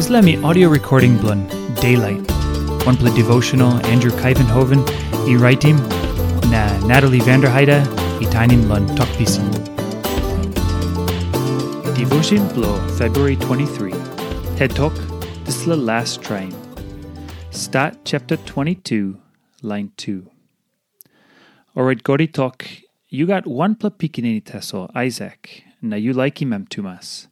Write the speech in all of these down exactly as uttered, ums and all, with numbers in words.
Dispela mi audio recording bilong Daylight, wanpela devotional Andrew Kaivenhoven i raitim, na Natalie Vanderheide i tainim long Tok Pisin. Devotion bilong February twenty-three. Ted Talk, dispela last traim. Stat chapter twenty-two, line two. Orait God i tok, "Yu gat wanpela pikinini tasol, Aisak, na yu laikim em tumas.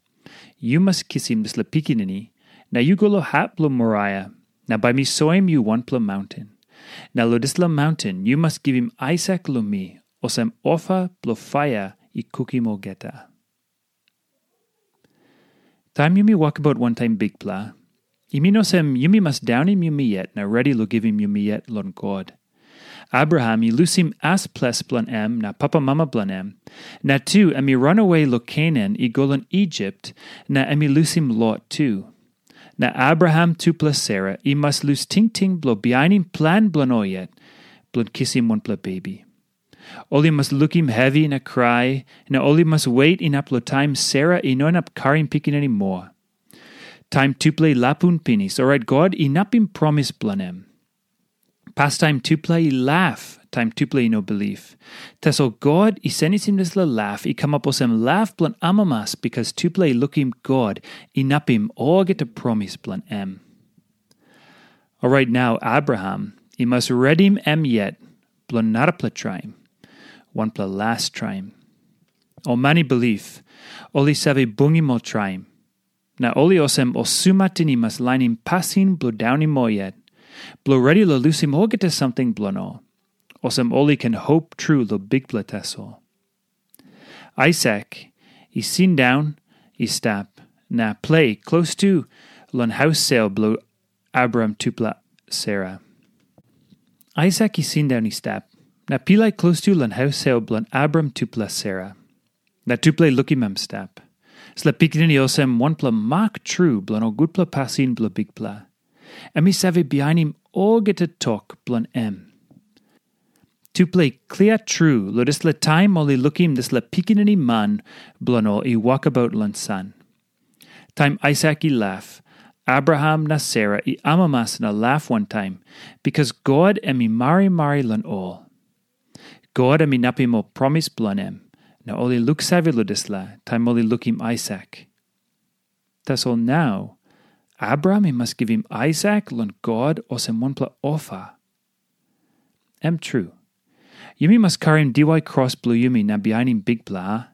Yu mas kisim dispela pikinini, na yu go long hap bilong Moraia, na bai mi soim yu wanpela maunten. Na long dispela maunten yu mas givim Aisak long mi, olsem ofa bilong paia i kukim olgeta." Taim yumi wokabaut wantaim Bikpela, i min olsem yumi mas daunim yumi yet na redi long givim yumi yet long God. Abraham i lusim as ples bilong em na papamama bilong em, na tu em i ranawe long Kenan i go long Isip, na em i lusim Lot tu. Na Abraham tupela Sera i mas lus tingting bilong bihainim plan bilong ol yet, bilong kisim wanpela bebi. Ol i mas lukim hevi na krai, na ol i mas wet inap long taim Sera i no inap karim pikinini moa. Taim tupela i lapun pinis, orait God inapim promis bilong em. Pastaim tupela i laf taim tupela i no bilip. Tasol God i senisim dispela laf i kamap olsem laf bilong amamas, bikas tupela i lukim God inapim olgeta promis bilong em. Orait nau Abraham i mas redim em yet bilong narapela traim, wanpela las traim. Ol man i bilip, ol i save bungim ol traim. Na ol i olsem ol sumatin i mas lainim pasin bilong daunim ol yet, bilong redi long lusim olgeta samting bilong ol, olsem ol i ken hop tru long Bikpela tasol. Aisak i sindaun i stap na ples klostu long haus sel bilong Abraham tupela Sera. Aisak i sindaun i stap na pilai klostu long haus sel bilong Abraham tupela Sera. Na tupela i lukim em stap. Dispela pikinini olsem wanpela mak tru bilong ol gutpela pasin bilong Bikpela. Em i save bihainim olgeta tok bilong em. Tupela i klia tru long dispela taim ol i lukim dispela pikinini man bilong ol i wokabaut long san. Taim Aisak i laf, Abraham na Sera i amamas na laf wantaim, bikas God em i marimari long ol. God em inapim ol promis bilong em, na ol i luksave long dispela taim ol i lukim Aisak. Tasol nau, Abraham i mas givim Aisak long God olsem wanpela ofa. Em tru, yumi mas karim diwai kros bilong yumi na bihainim Bikpela, a?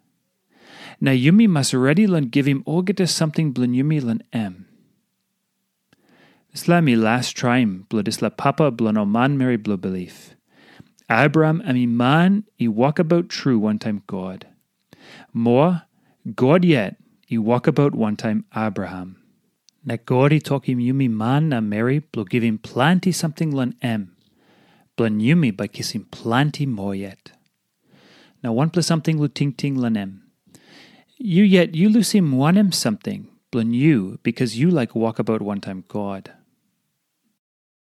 Na yumi mas redi long givim olgeta samting bilong yumi long em. Dispela em i las traim bilong dispela papa bilong ol manmeri bilong bilip. Abraham em i man i wokabaut tru wantaim God. Moa, God yet i wokabaut wantaim Abraham. Na God i tokim yumi man na meri bilong givim planti samting long em, bilong yumi bai kisim planti moa yet. Na wanpela samting long tingting long em. Yu yet yu lusim wanem samting bilong yu bikas yu laik wokabaut wantaim God?